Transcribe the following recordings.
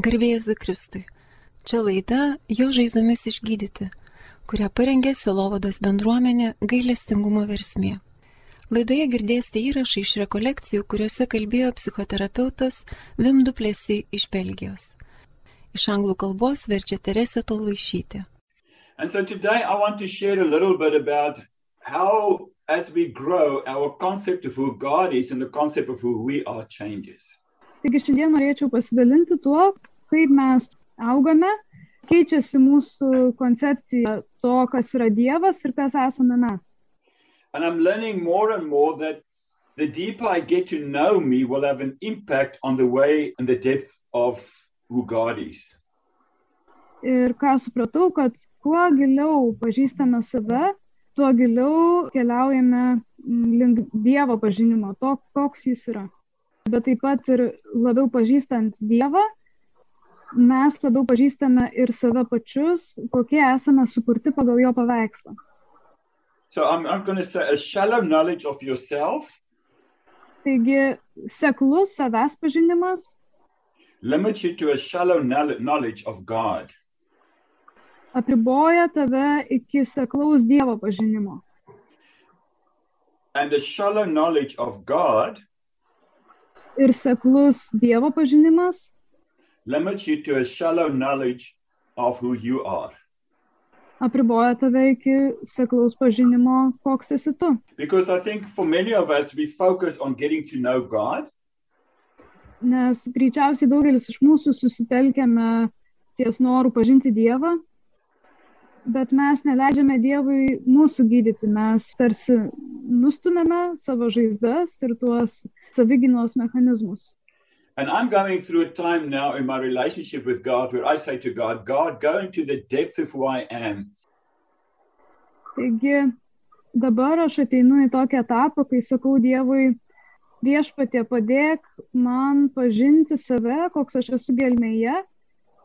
Garbė Jėzui Kristui. Čia laida Jo žaizdomis išgydyti, kurią parengė Sielovados bendruomenė Gailestingumo versmė. Laidoje girdėsite įrašą iš rekolekcijų, kuriuose kalbėjo psichoterapeutas Wim du Plessis iš Belgijos. Iš anglų kalbos verčia Teresė Tolvaišytė. And so today I want to share a little bit about how, as we grow, our concept of who God is and the concept of who we are changes. Taigi šiandien norėčiau pasidalinti tuo, kaip mes augame, keičiasi mūsų koncepcija to, kas yra Dievas ir kas esame mes. And I'm learning more and more that the deeper I get to know me will have an impact on the way and the depth of who God is. Ir ką supratau, kad kuo giliau pažįstame save, tuo giliau keliaujame link Dievo pažinimo, to, koks jis yra. Bet taip pat ir labiau pažįstant Dievą, mes labiau pažįstame ir save pačius, kokie esame sukurti pagal jo paveikslą. So I'm going to say a shallow knowledge of yourself. Taigi, seklus savęs pažinimas limits you to a shallow knowledge of God. Apriboja tave iki seklaus Dievo pažinimo. And the shallow knowledge of God Ir seklus Dievo pažinimas limits you to a shallow knowledge of who you are. Apriboja tave iki seklaus pažinimo, koks esi tu. Because I think for many of us, we focus on getting to know God. Nes greičiausiai daugelis iš mūsų susitelkėme ties noru pažinti Dievą, bet mes neleidžiame Dievui mūsų gydyti. Mes tarsi nustumėme savo žaizdas ir tuos savigynos mechanizmus. And I'm going through a time now in my relationship with God where I say to God, God, go into the depth of who I am. Taigi dabar aš ateinu į tokį etapą, kai sakau Dievui, Viešpatie, padėk man pažinti save, koks aš esu gelmėje,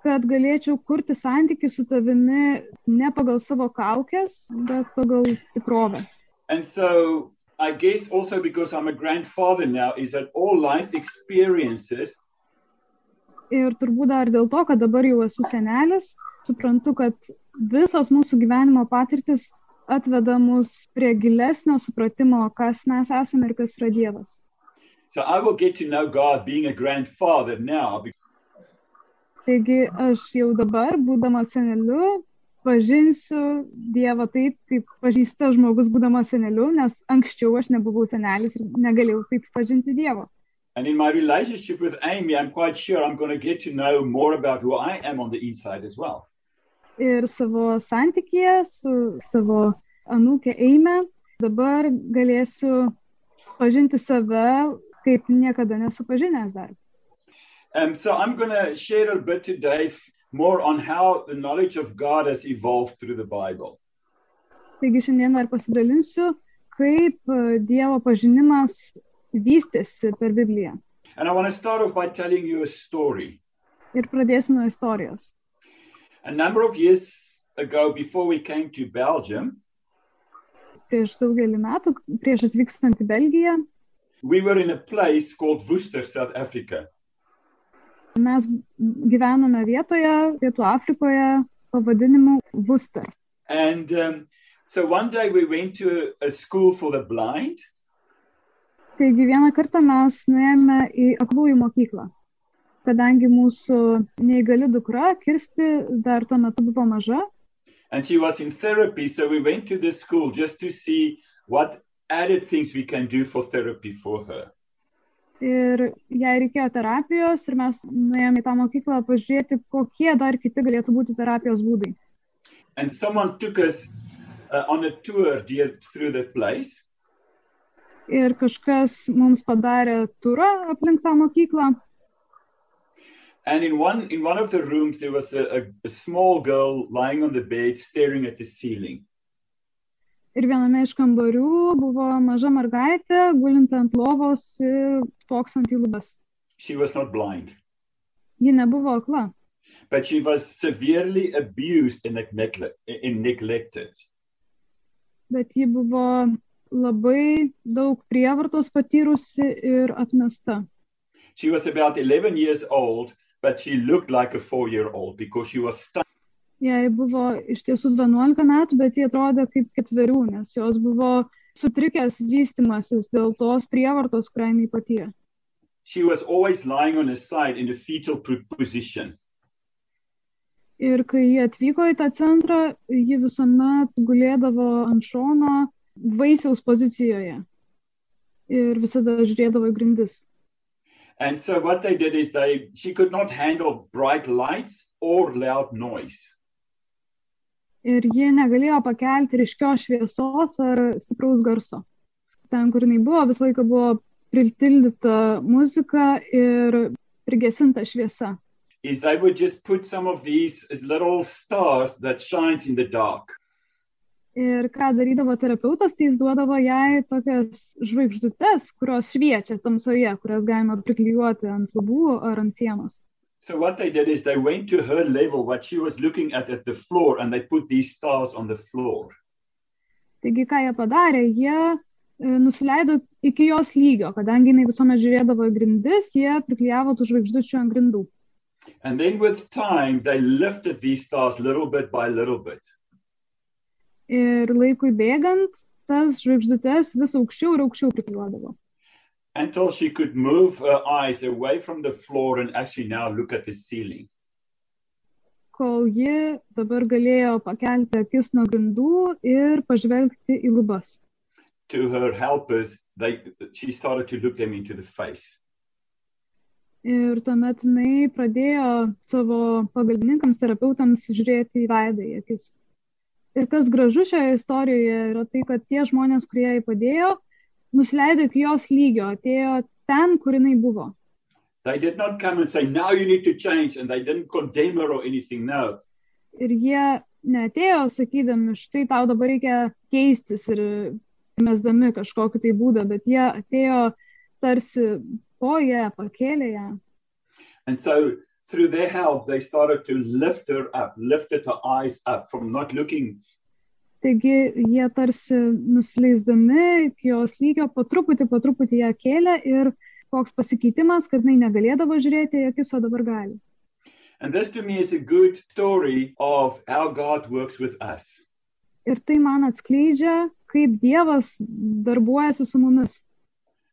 kad galėčiau kurti santykį su tavimi ne pagal savo kaukes, bet pagal tikrovę. And so I guess also because I'm a grandfather now is that all life experiences Ir turbūt dar dėl to, kad dabar jau esu senelis, suprantu, kad visos mūsų gyvenimo patirtis atveda mus prie gilesnio supratimo, kas mes esame ir kas yra Dievas. So I will get to know God being a grandfather now. Taigi aš jau dabar, būdamas seneliu, pažinsiu Dievą taip, kaip pažįsta žmogus būdamas seneliu, nes anksčiau aš nebuvau senelis ir negalėjau taip pažinti Dievo. And in my relationship with Amy, I'm quite sure I'm going to get to know more about who I am on the inside as well. Ir savo santykyje su savo anūke Eime dabar galėsiu pažinti save, kaip niekada nesu pažinęs dar. So I'm going to share a bit today more on how the knowledge of God has evolved through the Bible. Taigi šiandien dar pasidalinsiu, kaip Dievo pažinimas vystėsi per Bibliją. And I want to start off by telling you a story. Ir pradėsiu nuo istorijos. A number of years ago, before we came to Belgium, Prieš daugelį metų, prieš atvykstant į Belgiją, we were in a place called Worcester, South Africa. mes gyvenome vietoje, Pietų Afrikoje, pavadinimu Worcester. And so one day we went to a school for the blind. Taigi vieną kartą mes nuėjome į aklųjų mokyklą, kadangi mūsų neįgali dukra, Kirsti, dar tuo metu buvo maža. And she was in therapy, so we went to the school just to see what added things we can do for therapy for her. Ir jai reikėjo terapijos ir mes nuėjome į tą mokyklą pažiūrėti, kokie dar kiti galėtų būti terapijos būdai. And someone took us on a tour through the place. Ir kažkas mums padarė turą aplink tą mokyklą. And in one of the rooms there was a small girl lying on the bed staring at the ceiling. Ir viename iš kambarių buvo maža mergaitė, gulinti ant lovos ir spoksant į lubas. She was not blind, Ji nebuvo akla, but she was severely abused and neglected. bet ji buvo labai daug prievartos patyrusi ir atmesta. She was about 11 years old, but she looked like a 4-year-old because she was stuck. Jai buvo iš tiesų 11 metų, bet jie atrodė kaip 4, nes jos buvo sutrikęs vystimasis dėl tos prievartos, kurią jinai patyrė. She was always lying on her side in a fetal position. Ir kai jie atvyko į tą centrą, ji visuomet gulėdavo ant šono vaisiaus pozicijoje ir visada žiūrėdavo į grindis. And so what they did is she could not handle bright lights or loud noise. Ir jie negalėjo pakelti ryškios šviesos ar stipraus garso. Ten, kur jinai buvo, visą laiką buvo pritildyta muzika ir prigesinta šviesa. Is they would just put some of these as little stars that shines in the dark. Ir ką darydavo terapeutas, tai jis duodavo jai tokias žvaigždutes, kurios šviečia tamsoje, kurias galima priklijuoti ant lubų ar ant sienos. So what they did is they went to her level, what she was looking at the floor, and they put these stars on the floor. Taigi, ką jie padarė, jie nusileido iki jos lygio, kadangi jinai visuomet žiūrėdavo į grindis, jie priklijavo tų žvaigždučių ant grindų. And then with time, they lifted these stars little bit by little bit. Ir laikui bėgant, tas žvaigždutes vis aukščiau ir aukščiau priklijuodavo. Until she could move her eyes away from the floor and actually now look at the ceiling. Kol ji dabar galėjo pakelti akis nuo grindų ir pažvelgti į lubas. To her helpers, she started to look them into the face. Ir tuomet jinai pradėjo savo pagalbininkams, terapeutams žiūrėti į veidą, į akis. Ir kas gražu šioje istorijoje yra tai, kad tie žmonės, kurie jai padėjo, nusileido iki jos lygio, atėjo ten, kur jinai buvo. They did not come and say, now you need to change, and they didn't condemn her or anything, no. Ir jie neatėjo sakydami, štai tau dabar reikia keistis ir mesdami kažkokį tai būdą, bet jie atėjo tarsi po ją, pakėlė ją. And so through their help, they started to lift her up, lifted her eyes up from not looking. Taigi jie tarsi nusileisdami iki jos lygio po truputį ją kėlė ir koks pasikeitimas, kad jinai negalėdavo žiūrėti į akis, o dabar gali. And this to me is a good story of how God works with us. Ir tai man atskleidžia, kaip Dievas darbuojasi su mumis.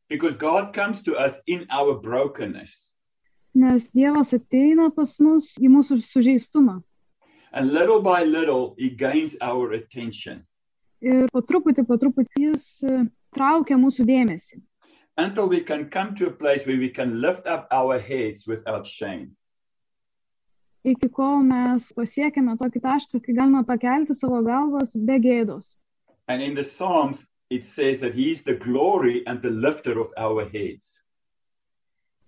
Because God comes to us in our brokenness. Nes Dievas ateina pas mus į mūsų sužeistumą. And little by little, he gains our attention. Ir po truputį jis traukia mūsų dėmesį. Until we can come to a place where we can lift up our heads without shame. Iki kol mes pasiekėme tokį tašką, kai galime pakelti savo galvas be gėdos. And in the Psalms, it says that he is the glory and the lifter of our heads.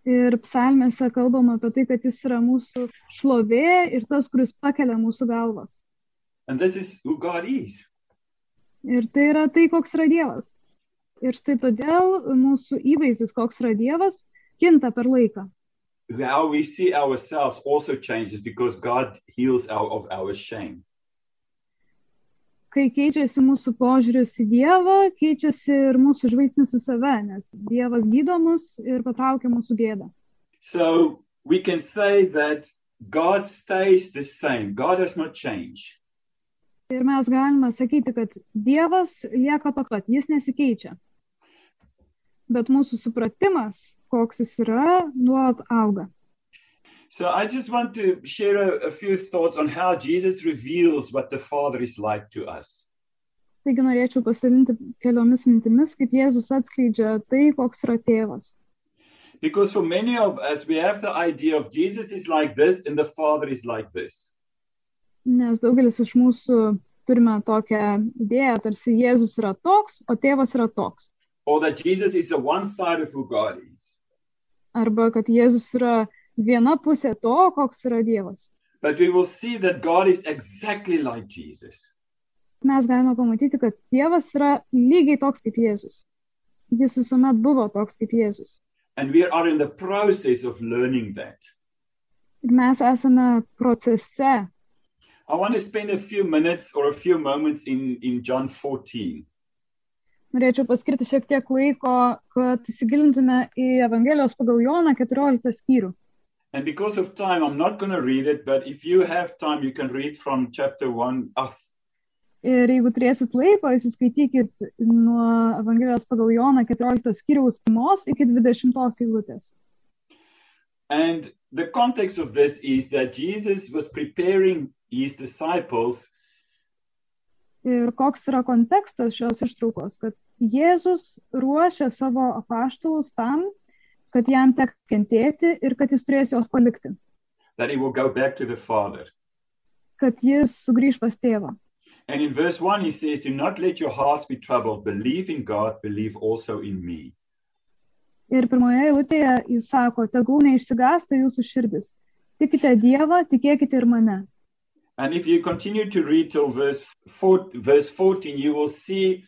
Ir psalmėse kalbama apie tai, kad jis yra mūsų šlovė ir tas, kuris pakelia mūsų galvas. And this is who God is. Ir tai yra tai, koks yra Dievas. Ir štai todėl mūsų įvaizdis, koks yra Dievas, kinta per laiką. How we see ourselves also changes because God heals of our shame. Kai keičiasi mūsų požiūris į Dievą, keičiasi ir mūsų žvilgsnis į save, nes Dievas gydo mus ir patraukia mūsų gėdą. So we can say that God stays the same. God has not changed. Ir mes galime sakyti, kad Dievas lieka toks pat, jis nesikeičia. Bet mūsų supratimas, koks jis yra, nuolat auga. So I just want to share a few thoughts on how Jesus reveals what the Father is like to us. Taigi norėčiau pasidalinti keliomis mintimis, kaip Jėzus atskleidžia tai, koks yra tėvas. Because for many of us, we have the idea of Jesus is like this and the Father is like this. Nes daugelis iš mūsų turime tokią idėją, tarsi Jėzus yra toks, o tėvas yra toks. Or that Jesus is the one side of who God is. Arba kad Jėzus yra viena pusė to, koks yra Dievas. But we will see that God is exactly like Jesus. Mes galime pamatyti, kad Dievas yra lygiai toks kaip Jėzus. Jis visuomet buvo toks kaip Jėzus. And we are in the process of learning that. Ir mes esame procese. I want to spend a few minutes or a few moments in John 14. Norėčiau paskirti šiek tiek laiko, kad įsigilintume į Evangelijos pagal Joną 14 skyrių. And because of time, I'm not going to read it, but if you have time, you can read from chapter 1. Ir jeigu turėsit laiko, įsiskaitykit nuo Evangelijos pagal Joną 14 skyriaus 1 iki 20 eilutės. And the context of this is that Jesus was preparing his disciples. Ir koks yra kontekstas šios ištraukos, kad Jėzus ruošia savo apaštalus tam, kad jam teks kentėti ir kad jis turės juos palikti. That he will go back to the Father. Kad jis sugrįž pas tėvą. And in verse 1 he says, do not let your hearts be troubled. Believe in God, believe also in me. Ir pirmoje eilutėje jis sako, tegul neišsigąsta jūsų širdis. Tikite Dievą, tikėkite ir mane. And if you continue to read till verse 14, you will see.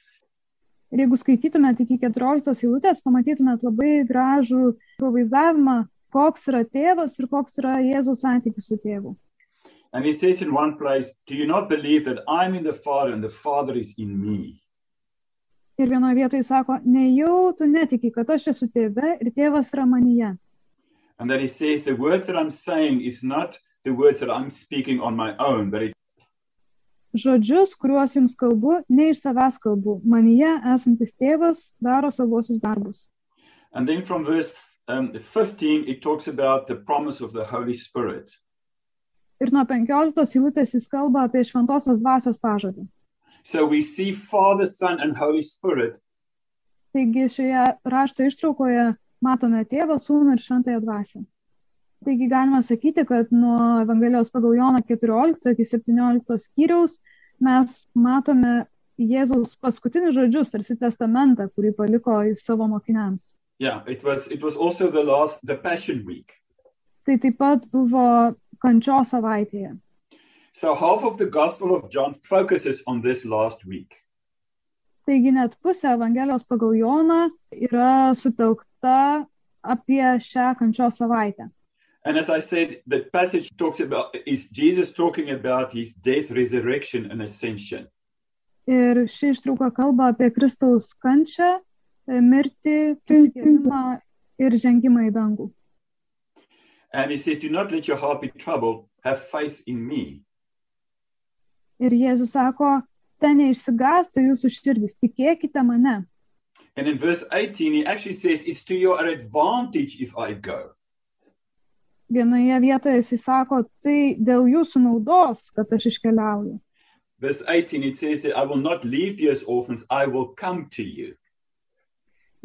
Ir jeigu skaitytumėt iki 14 eilutės, pamatytumėt labai gražų pavaizdavimą, koks yra tėvas ir koks yra Jėzaus santykis su tėvu. And he says in one place, do you not believe that I'm in the Father and the Father is in me? Ir vienoje vietoje sako, nejau tu netiki, kad aš esu tėve ir tėvas yra manyje. And then he says, the words that I'm saying is not the words that I'm speaking on my own, but Žodžius, kuriuos jums kalbu, ne iš savęs kalbu. Manyje esantis tėvas daro savosius darbus. And then from verse 15, it talks about the promise of the Holy Spirit. Ir nuo 15 eilutės jis kalba apie šventosios dvasios pažadą. So we see Father, Son, and Holy Spirit. Taigi šioje rašto ištraukoje matome tėvą, sūnų ir šventąją dvasią. Taigi galima sakyti, kad nuo Evangelijos pagal Joną 14 iki 17 skyriaus mes matome Jėzaus paskutinius žodžius, tarsi testamentą, kurį paliko savo mokiniams. Yeah, it was also the Passion Week. Tai taip pat buvo kančios savaitėje. So half of the Gospel of John focuses on this last week. Taigi net pusė Evangelijos pagal Joną yra sutelkta apie šią kančios savaitę. And as I said, the passage talks about is Jesus talking about his death, resurrection, and ascension. Ir ši ištrauka kalba apie Kristaus kančią, mirtį, prisikėlimą ir žengimą į dangų. And he says, do not let your heart be troubled, have faith in me. Ir Jėzus sako, ten neišsigąsta jūsų širdis, tikėkite mane. And in verse 18, he actually says, it's to your advantage if I go. Vienoje vietoje jis sako, tai dėl jūsų naudos, kad aš iškeliauju. Verse 18, it says that I will not leave you as orphans, I will come to you.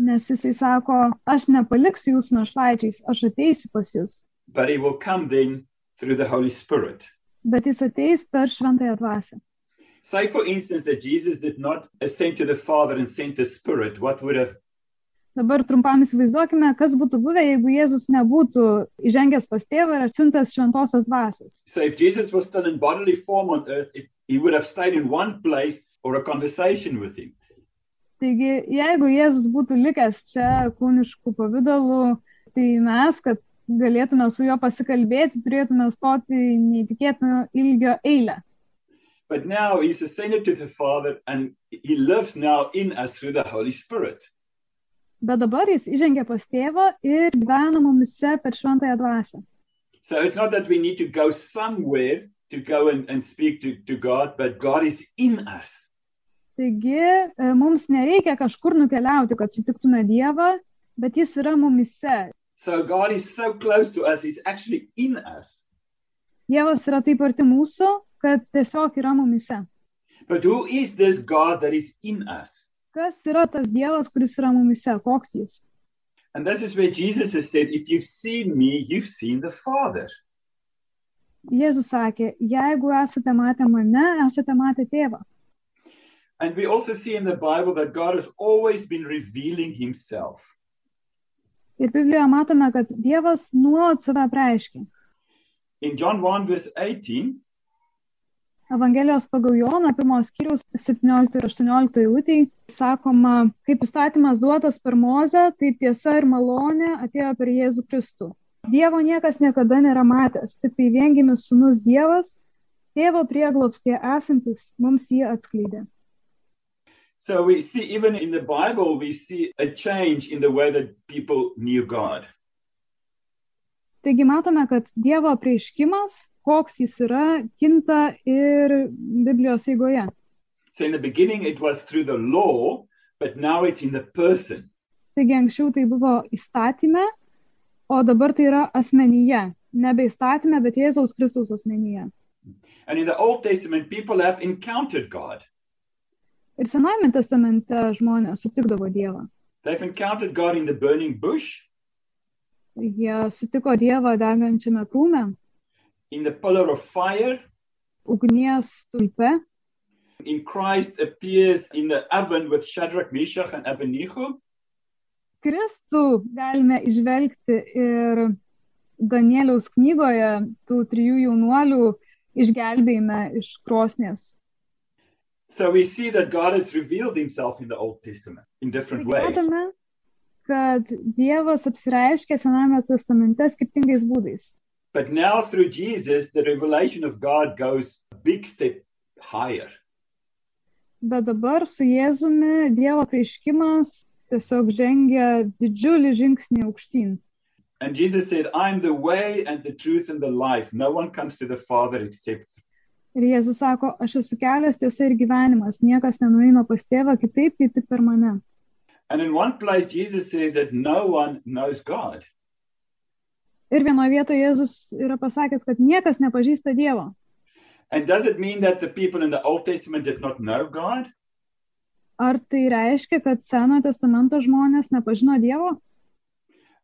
Nes jisai sako, aš nepaliksiu jūsų našlaičiais, aš ateisiu pas jūs. But he will come then through the Holy Spirit. Bet jis ateis per šventąją dvasią. Say, for instance, that Jesus did not ascend to the Father and send the Spirit. What would have... Dabar trumpam įsivaizduokime, kas būtų buvę, jeigu Jėzus nebūtų įžengęs pas tėvą ir atsiuntęs šventosios dvasios. So if Jesus was still in bodily form on earth, he would have stayed in one place or a conversation with him. Taigi, jeigu Jėzus būtų likęs čia kūniškų pavydalų, tai mes, kad galėtume su juo pasikalbėti, turėtume stoti neįtikėtino ilgio eilę. But now he's ascended to the Father and he lives now in us through the Holy Spirit. Bet dabar jis įžengia pas tėvą ir gyvena mumise per šventąją dvasią. So it's not that we need to go somewhere to go and speak to God, but God is in us. Taigi, mums nereikia kažkur nukeliauti, kad sutiktume Dievą, bet jis yra mumise. So God is so close to us, he's actually in us. Dievas yra taip arti mūsų, kad tiesiog yra mumise. But who is this God that is in us? Kas yra tas Dievas, kuris yra mumise? Koks jis? And this is where Jesus has said, if you've seen me, you've seen the Father. Jėzus sakė, jeigu esate matę mane, esate matę tėvą. And we also see in the Bible that God has always been revealing himself. Ir Biblijoje matome, kad Dievas nuolat save apreiškia. In John 1 verse 18, Evangelijos pagal Joną, 1 skyriaus 17 ir 18 eilutėj sakoma, kaip įstatymas duotas per Mozę, taip tiesa ir malonė atėjo per Jėzų Kristų. Dievo niekas niekada nėra matęs, tik tai viengimis sūnus Dievas, tėvo prieglobstyje esantis, mums jį atskleidė. So we see, even in the Bible, we see a change in the way that people knew God. Taigi matome, kad Dievo apreiškimas, koks jis yra, kinta ir Biblijos eigoje. So in the beginning it was through the law, but now it's in the person. Taigi anksčiau tai buvo įstatyme, o dabar tai yra asmenyje. Nebe įstatyme, bet Jėzaus Kristaus asmenyje. And in the Old Testament, people have encountered God. Ir Senajame testamente žmonės sutikdavo Dievą. They've encountered God in the burning bush, Jie sutiko Dievą degančiame krūme, in the pillar of fire. ugnies stulpe. In Christ appears in the oven with Shadrach, Meshach, and Abednego. Kristų galime išvelgti ir Danieliaus knygoje tų 3 jaunuolių išgelbėjime iš krosnies. So we see that God has revealed himself in the Old Testament in different ways. Matome, kad Dievas apsireiškia Senajame testamente skirtingais būdais. But now through Jesus, the revelation of God goes a big step higher. Bet dabar su Jėzumi Dievo apreiškimas tiesiog žengia didžiulį žingsnį aukštyn. And Jesus said, I'm the way and the truth and the life. No one comes to the Father except. Ir Jėzus sako, aš esu kelias, tiesa ir gyvenimas, niekas nenueina pas tėvą kitaip, kaip tik per mane. And in one place, Jesus said that no one knows God. Ir vienoje vietoje Jėzus yra pasakęs, kad niekas nepažįsta Dievo. And does it mean that the people in the Old Testament did not know God? Ar tai reiškia, kad Senojo testamento žmonės nepažino Dievo?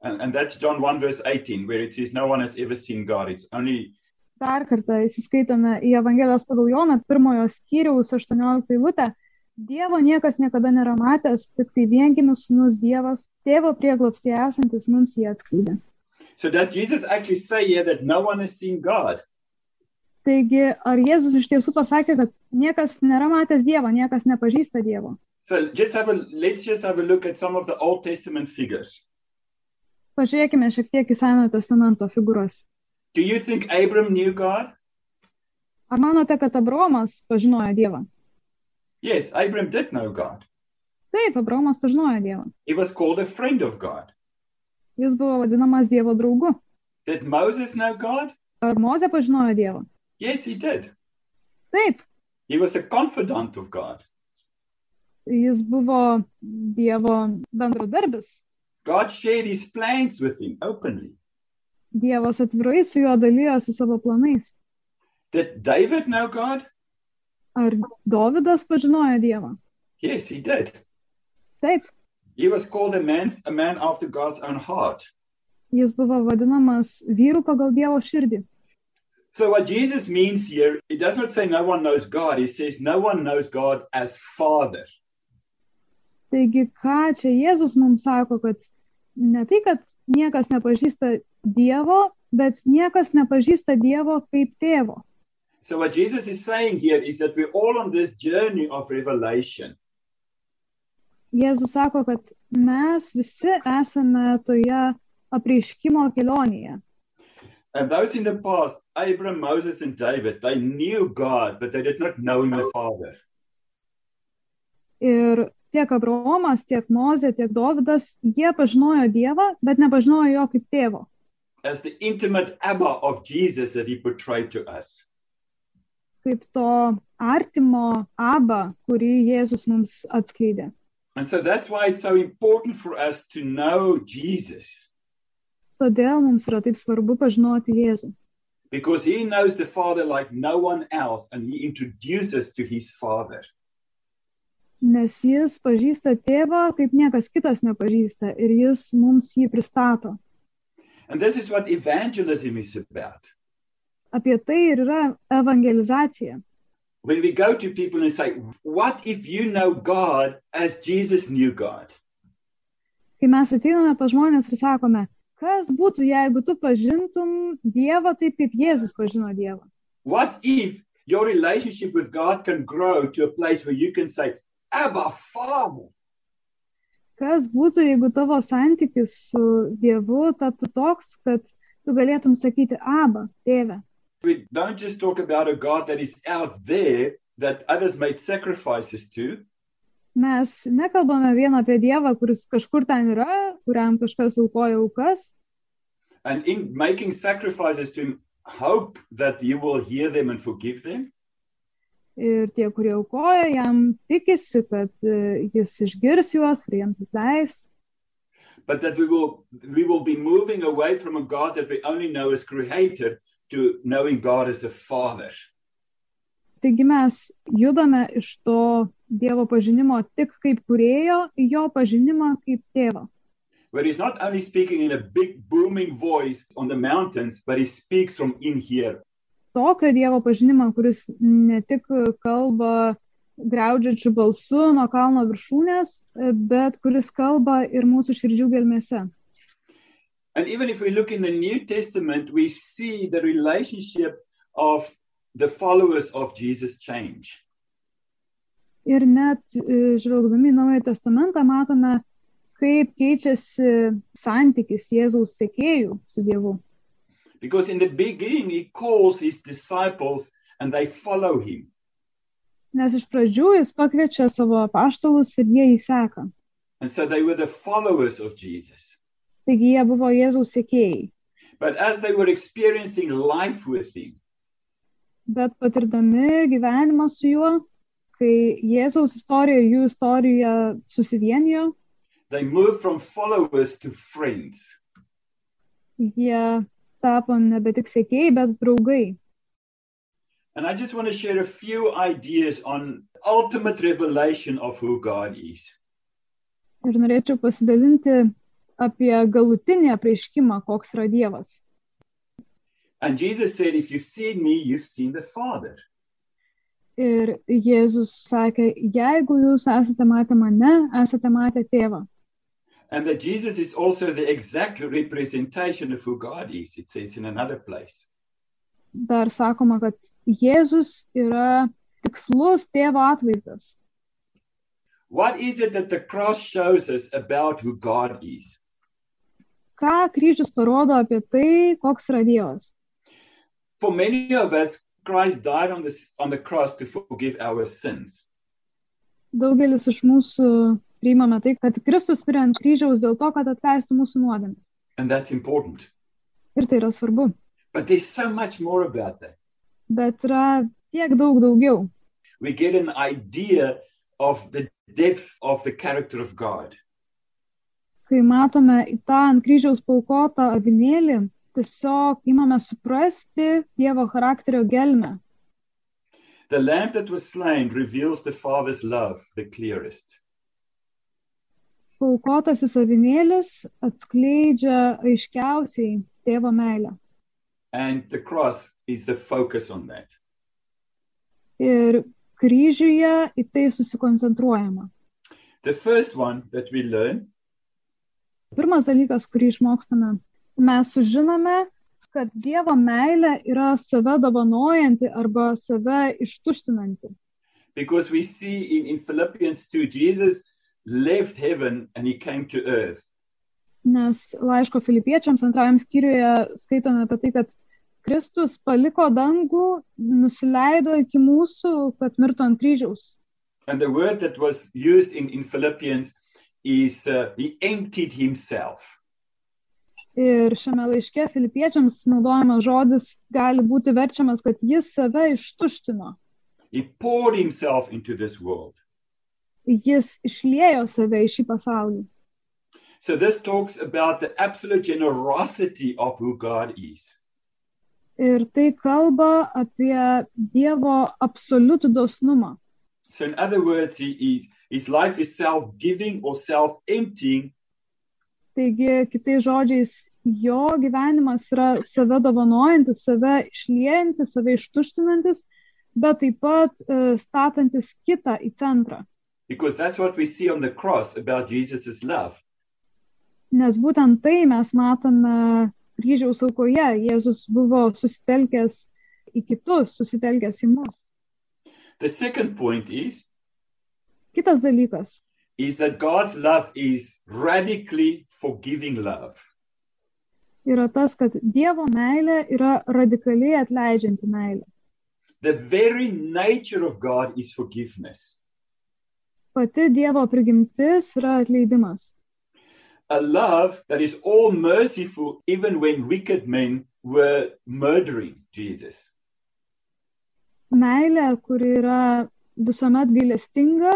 And that's John 1 verse 18, where it says no one has ever seen God. It's only. Dar kartą įsiskaitome į Evangelijos pagal Joną 1 skyriaus 18 eilutę. Dievo niekas niekada nėra matęs, tik tai viengimis sūnus Dievas, tėvo prieglobstyje esantis mums jį atskleidė. So does Jesus actually say here that no one has seen God? Taigi, ar Jėzus iš tiesų pasakė, kad niekas nėra matęs Dievo, niekas nepažįsta Dievo? So let's just have a look at some of the Old Testament figures. Pažiūrėkime šiek tiek į Senojo testamento figūras. Do you think Abram knew God? Ar manote, kad Abraomas pažinojo Dievą? Yes, Abram did know God. Taip, Abraomas pažinojo Dievą. He was called a friend of God. Jis buvo vadinamas Dievo draugu. Did Moses know God? Ar Mozė pažinojo Dievą? Yes, he did. Taip, He was a confidant of God. jis buvo Dievo bendradarbis. God shared his plans with him openly. Dievas atvirai su juo dalyjosi savo planais. Did David know God? Ar Dovydas pažinojo Dievą? Yes, he did. Taip, He was called a man after God's own heart. jis buvo vadinamas vyru pagal Dievo širdį. So what Jesus means here, he does not say no one knows God. He says no one knows God as Father. Taigi, ką čia Jėzus mums sako, kad ne tai, kad niekas nepažįsta Dievo, bet niekas nepažįsta Dievo kaip tėvo. So what Jesus is saying here is that we're all on this journey of revelation. Jėzus sako, kad mes visi esame toje apreiškimo kelionėje. And those in the past, Abraham, Moses, and David, they knew God, but they did not know him as Father. Ir tiek Abraomas, tiek Mozė, tiek Dovydas, jie pažinojo Dievą, bet nepažinojo jo kaip tėvo. As the intimate Abba of Jesus that he portrayed to us. Kaip to artimo Abba, kurį Jėzus mums atskleidė. And so that's why it's so important for us to know Jesus. Todėl mums yra taip svarbu pažinoti Jėzų. Because he knows the Father like no one else, and he introduces to his Father. Nes jis pažįsta tėvą, kaip niekas kitas nepažįsta, ir jis mums jį pristato. And this is what evangelism is about. Apie tai ir yra evangelizacija. When we go to people and say, what if you know God as Jesus knew God? Kai mes ateiname pas žmonės ir sakome, kas būtų, jeigu tu pažintum Dievą taip, kaip Jėzus pažino Dievą? What if your relationship with God can grow to a place where you can say, Abba, Father? Kas būtų, jeigu tavo santykis su Dievu taptų toks, kad tu galėtum sakyti, Abba, tėve? We don't just talk about a God that is out there that others made sacrifices to. Mes nekalbame vien apie Dievą, kuris kažkur ten yra, kuriam kažkas aukoja aukas. And in making sacrifices to him, hope that he will hear them and forgive them. Ir tie, kurie aukoja, jam tikisi, kad jis išgirs juos ir jiems atleis. But that we will be moving away from a God that we only know as creator to knowing God as a father. Taigi mes judame iš to Dievo pažinimo tik kaip kūrėjo į jo pažinimą kaip tėvą. Where he's not only speaking in a big booming voice on the mountains, but he speaks from in here. Tokio Dievo pažinimą, kuris ne tik kalba griaudžiančiu balsu nuo kalno viršūnės, bet kuris kalba ir mūsų širdžių gelmėse. And even if we look in the New Testament, we see the relationship of the followers of Jesus change. Ir net žvelgdami į Naująjį testamentą matome, kaip keičiasi santykis Jėzaus sekėjų su Dievu. Because in the beginning, he calls his disciples and they follow him. Nes iš pradžių jis pakviečia savo apaštalus ir jie jį seka. And so they were the followers of Jesus. Taigi jie buvo Jėzaus sekėjai. But as they were experiencing life with him, Bet patirdami gyvenimą su juo, kai Jėzaus istorija, jų istorija susivienijo, they moved from followers to friends. jie tapo nebe tik sekėjai, bet draugai. And I just want to share a few ideas on ultimate revelation of who God is. Ir norėčiau pasidalinti apie galutinį apreiškimą, koks yra Dievas. And Jesus said, if you've seen me, you've seen the Father. Ir Jėzus sakė, jeigu jūs esate matę mane, esate matę tėvą. And that Jesus is also the exact representation of who God is, it says in another place. Dar sakoma, kad Jėzus yra tikslus tėvo atvaizdas. What is it that the cross shows us about who God is? Ką kryžius parodo apie tai, koks yra Dievas? For many of us, Christ died on the cross to forgive our sins. Daugelis iš mūsų priimame tai, kad Kristus mirė ant kryžiaus dėl to, kad atleistų mūsų nuodėmes. And that's important. Ir tai yra svarbu. But there's so much more about that. Bet yra tiek daug daugiau. We get an idea of the depth of the character of God. Kai matome į tą ant kryžiaus paaukotą avinėlį, tiesiog imame suprasti Dievo charakterio gelmę. The lamb that was slain reveals the Father's love the clearest. Paaukotasis avinėlis atskleidžia aiškiausiai tėvo meilę. And the cross is the focus on that. Ir kryžiuje į tai susikoncentruojama. The first one that we learn Pirmas dalykas, kurį išmokstame, mes sužinome, kad Dievo meilė yra save dovanojanti arba save ištuštinanti. because we see in Philippians 2, Jesus left heaven and he came to earth. Nes laiško Filipiečiams 2 skyriuje skaitome apie tai, kad Kristus paliko dangų, nusileido iki mūsų, kad mirtų ant kryžiaus. And the word that was used in Philippians is he emptied himself. Ir šiame laiške Filipiečiams naudojamas žodis gali būti verčiamas, kad jis save ištuštino. He poured himself into this world. Jis išliejo save į šį pasaulį. So this talks about the absolute generosity of who God is. Ir tai kalba apie Dievo absoliutų dosnumą. So in other words, his life is self-giving or self-emptying. Taigi, kitais žodžiais, jo gyvenimas yra save dovanojantis, save išliejantis, save ištuštinantis, bet taip pat statantis kitą į centrą. Because that's what we see on the cross about Jesus' love. Nes būtent tai mes matome kryžiaus aukoje. Jėzus buvo susitelkęs į kitus, susitelkęs į mus. The second point Kitas dalykas is that God's love is radically forgiving love. yra tas, kad Dievo meilė yra radikaliai atleidžianti meilė. The very nature of God is forgiveness. Pati Dievo prigimtis yra atleidimas. a love that is all merciful even when wicked men were murdering Jesus. Meilė, kuri yra visuomet gailestinga,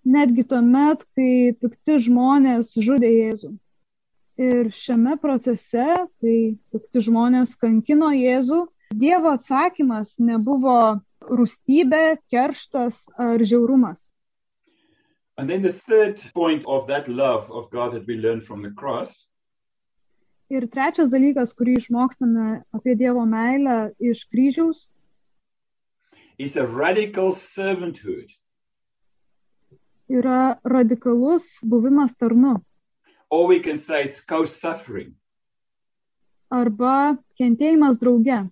netgi tuomet, kai pikti žmonės žudė Jėzų. Ir šiame procese, kai pikti žmonės kankino Jėzų, Dievo atsakymas nebuvo rūstybė, kerštas ar žiaurumas. And then the third point of that love of God that we learn from the cross Ir trečias dalykas, kurį išmokstame apie Dievo meilę iš kryžiaus, is a radical servanthood. yra radikalus buvimas tarnu Or we can say it's co-suffering. arba kentėjimas drauge.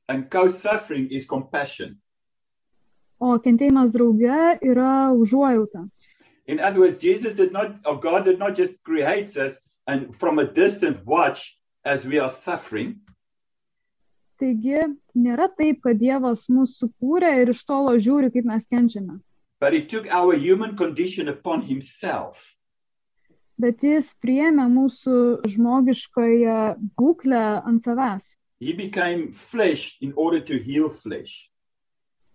And co-suffering is compassion. O kentėjimas drauge yra užuojauta. In other words, God did not just create us and from a distant watch as we are suffering. Taigi, nėra taip, kad Dievas mus sukūrė ir iš tolo žiūri, kaip mes kenčiame. But he took our human condition upon himself. Bet jis priėmė mūsų žmogiškąją būklę ant savęs. He became flesh in order to heal flesh.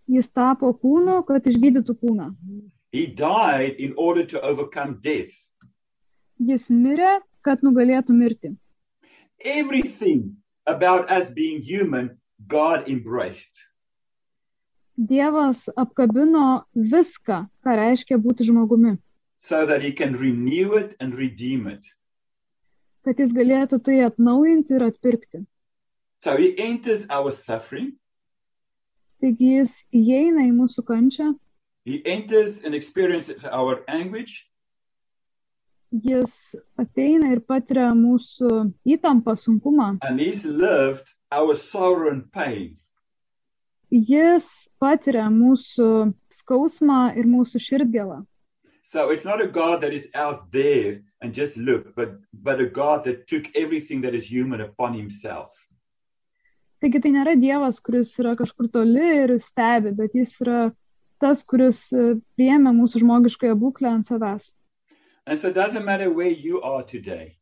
Jis tapo kūnu, kad išgydytų kūną. He died in order to overcome death. Jis mirė, kad nugalėtų mirtį. Everything about us being human, God embraced. Dievas apkabino viską, ką reiškia būti žmogumi, So that he can renew it and redeem it. kad jis galėtų tai atnaujinti ir atpirkti. So he enters our suffering. Taigi jis įeina į mūsų kančią, He enters and experiences our anguish. jis ateina ir patiria mūsų įtampą, sunkumą. And he's lived our sorrow and pain. Jis patiria mūsų skausmą ir mūsų širdgėlą. So it's not a God that is out there and just look, but a God that took everything that is human upon himself. Taigi tai nėra Dievas, kuris yra kažkur toli ir stebi, bet jis yra tas, kuris priėmė mūsų žmogiškąją būklę ant savęs. And so it doesn't matter where you are today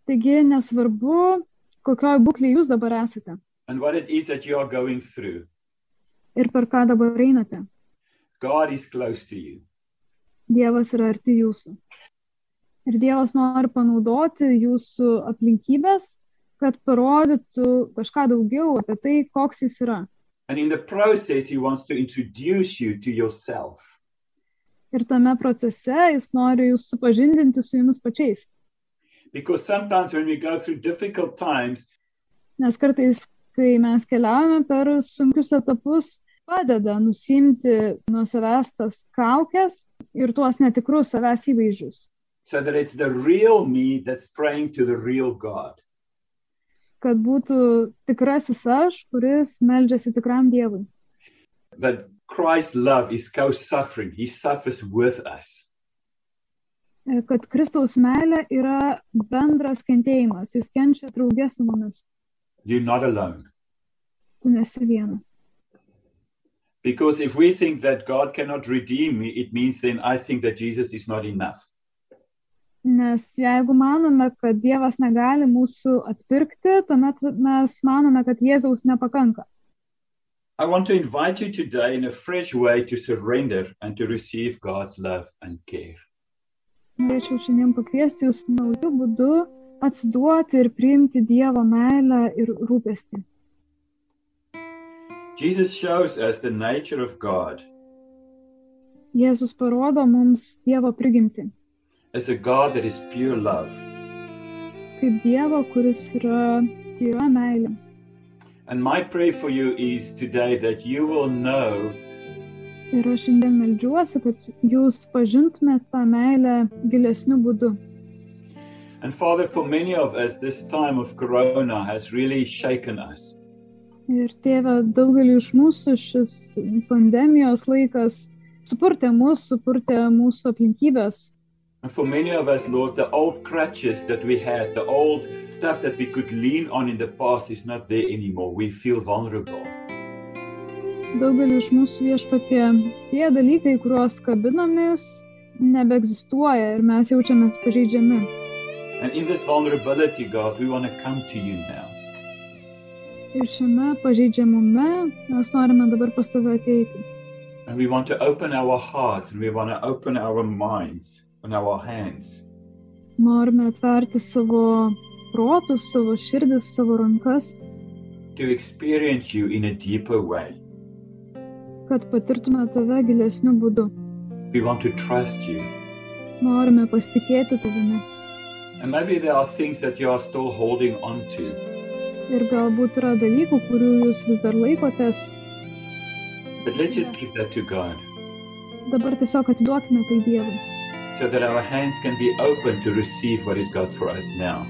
Taigi nesvarbu, kokioj būklėje jūs dabar esate and what it is that you are going through. ir per ką dabar einate. God is close to you. Dievas yra arti jūsų. Ir Dievas nori panaudoti jūsų aplinkybės, kad parodytų kažką daugiau apie tai, koks jis yra. And in the process, he wants to introduce you to yourself. Ir tame procese jis nori jūs supažindinti su jumis pačiais. Because sometimes when we go through difficult times, Nes kartais, kai mes keliaujame per sunkius etapus, padeda nusimti nuo savęs tas kaukes ir tuos netikrus savęs įvaizdžius. so that it's the real me that's praying to the real God. Kad būtų tikrasis aš, kuris meldžiasi tikram Dievui. That Christ's love is co-suffering. He suffers with us. Kad Kristaus meilė yra bendras kentėjimas. Jis kenčia drauge su mumis. You're not alone. Tu nesi vienas. Because if we think that God cannot redeem me, it means then I think that Jesus is not enough. Nes jeigu manome, kad Dievas negali mūsų atpirkti, tuomet mes manome, kad Jėzaus nepakanka. I want to invite you today in a fresh way to surrender and to receive God's love and care. Norėčiau šiandien pakviesti jūs naujų būdų atsiduoti ir priimti Dievo meilę ir rūpestį. Jesus shows us the nature of God Jėzus parodo mums Dievo prigimtį, as a God that is pure love. kaip Dievo, kuris yra tyra meilė. And my prayer for you is today that you will know Ir aš šiandien meldžiuosi, kad jūs pažintumėte tą meilę gilesniu būdu. And Father, for many of us, this time of Corona has really shaken us. Ir Tėve, daugeliu iš mūsų šis pandemijos laikas supurtė mūsų aplinkybės. And for many of us, Lord, the old crutches that we had, the old stuff that we could lean on in the past is not there anymore. We feel vulnerable. Daugeliu iš mūsų Viešpatie, tie dalykai, kuriuos kabinomės, nebeegzistuoja ir mes jaučiamės pažeidžiami. And in this vulnerability, God, we want to come to you now. Ir šiame pažeidžiamume mes norime dabar pas tave ateiti. And we want to open our hearts and we want to open our minds and our hands. Norime atverti savo protus, savo širdis, savo rankas, To experience you in a deeper way. kad patirtume tave gilesniu būdu. We want to trust you. Norime pasitikėti tavimi. And maybe there are things that you are still holding on to. Ir galbūt yra dalykų, kurių jūs vis dar laikotės. But let's just give that to God Dabar tiesiog atiduokime tai Dievui, so that our hands can be open to receive what is God for us now.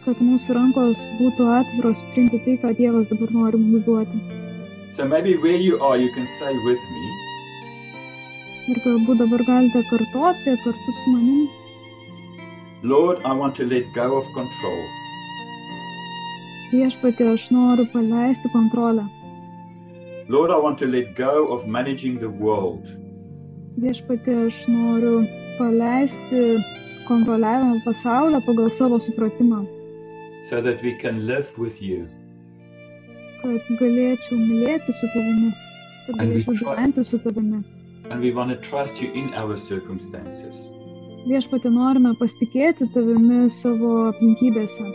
kad mūsų rankos būtų atviros priimti tai, ką Dievas dabar nori mums duoti. So maybe where you are, you can say with me, Ir galbūt dabar galite kartoti kartu su manim. Lord, I want to let go of control. Viešpatie, aš noriu paleisti kontrolę. Lord, I want to let go of managing the world. Viešpatie, aš noriu paleisti kontroliavimą pasaulio pagal savo supratimą, So that we can live with you. kad galėčiau mylėti su tavimi, kad And we galėčiau try- gyventi su tavimi. And we want to trust you in our circumstances. Viešpatie, norime pasitikėti tavimi savo aplinkybėse.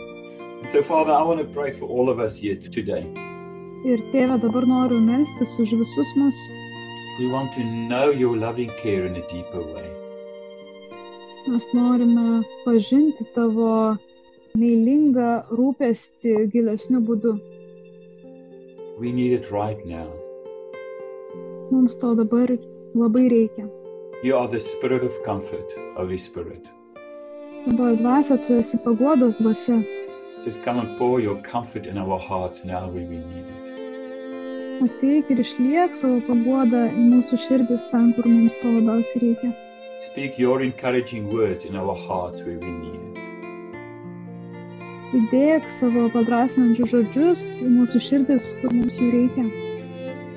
So, Father, I want to pray for all of us here today. Ir Tėve, dabar noriu melstis už visus mus. We want to know your loving care in a deeper way. Mes norime pažinti tavo meilingą rūpestį gilesniu būdu. We need it right now. Mums to dabar labai reikia. You are the spirit of comfort, Holy Spirit. Šventoji dvasia, tu esi paguodos dvasia. Just come and pour your comfort in our hearts now where we need it. Ateik ir išliek savo paguodą į mūsų širdis ten, kur mums to labiausiai reikia. Speak your encouraging words in our hearts where we need it. Įdėk savo padrasinančius žodžius į mūsų širdis, kur mums jų reikia.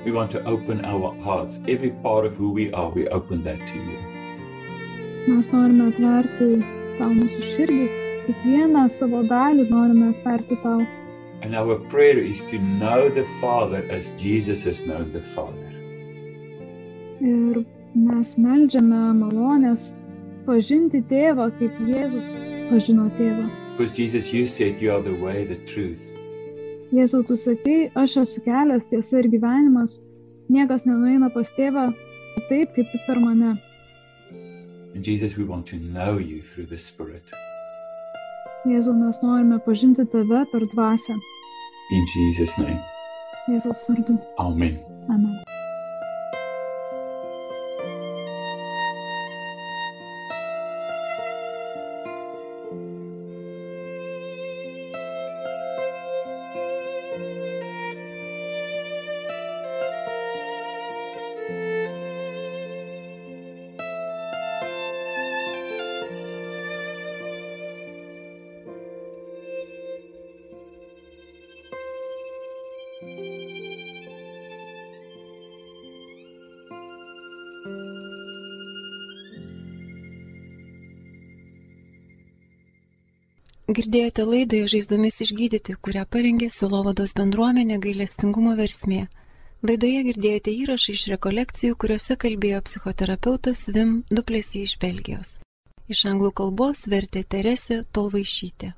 We want to open our hearts. Every part of who we are, we open that to you. Mes norime atverti tau mūsų širdis, kiekvieną savo dalį norime atverti tau. And our prayer is to know the Father as Jesus has known the Father. Ir mes meldžiame malonės pažinti tėvą, kaip Jėzus pažino tėvą. Because Jesus, you said you are the way, the truth. Jėzau, tu sakai, aš esu kelias, tiesa ir gyvenimas. Niekas nenueina pas tėvą taip, kaip tik per mane. And Jesus, we want to know you through the Spirit. Jėzau, mes norime pažinti tave per dvasią. In Jesus' name. Jėzaus vardu. Amen. Amen. Girdėjote laidą Žaizdomis išgydyti, kurią parengė Sielovados bendruomenė Gailestingumo versmė. Laidoje girdėjote įrašą iš rekolekcijų, kuriuose kalbėjo psichoterapeutas Wim Du Plessis iš Belgijos. Iš anglų kalbos vertė Teresė Tolvaišytė.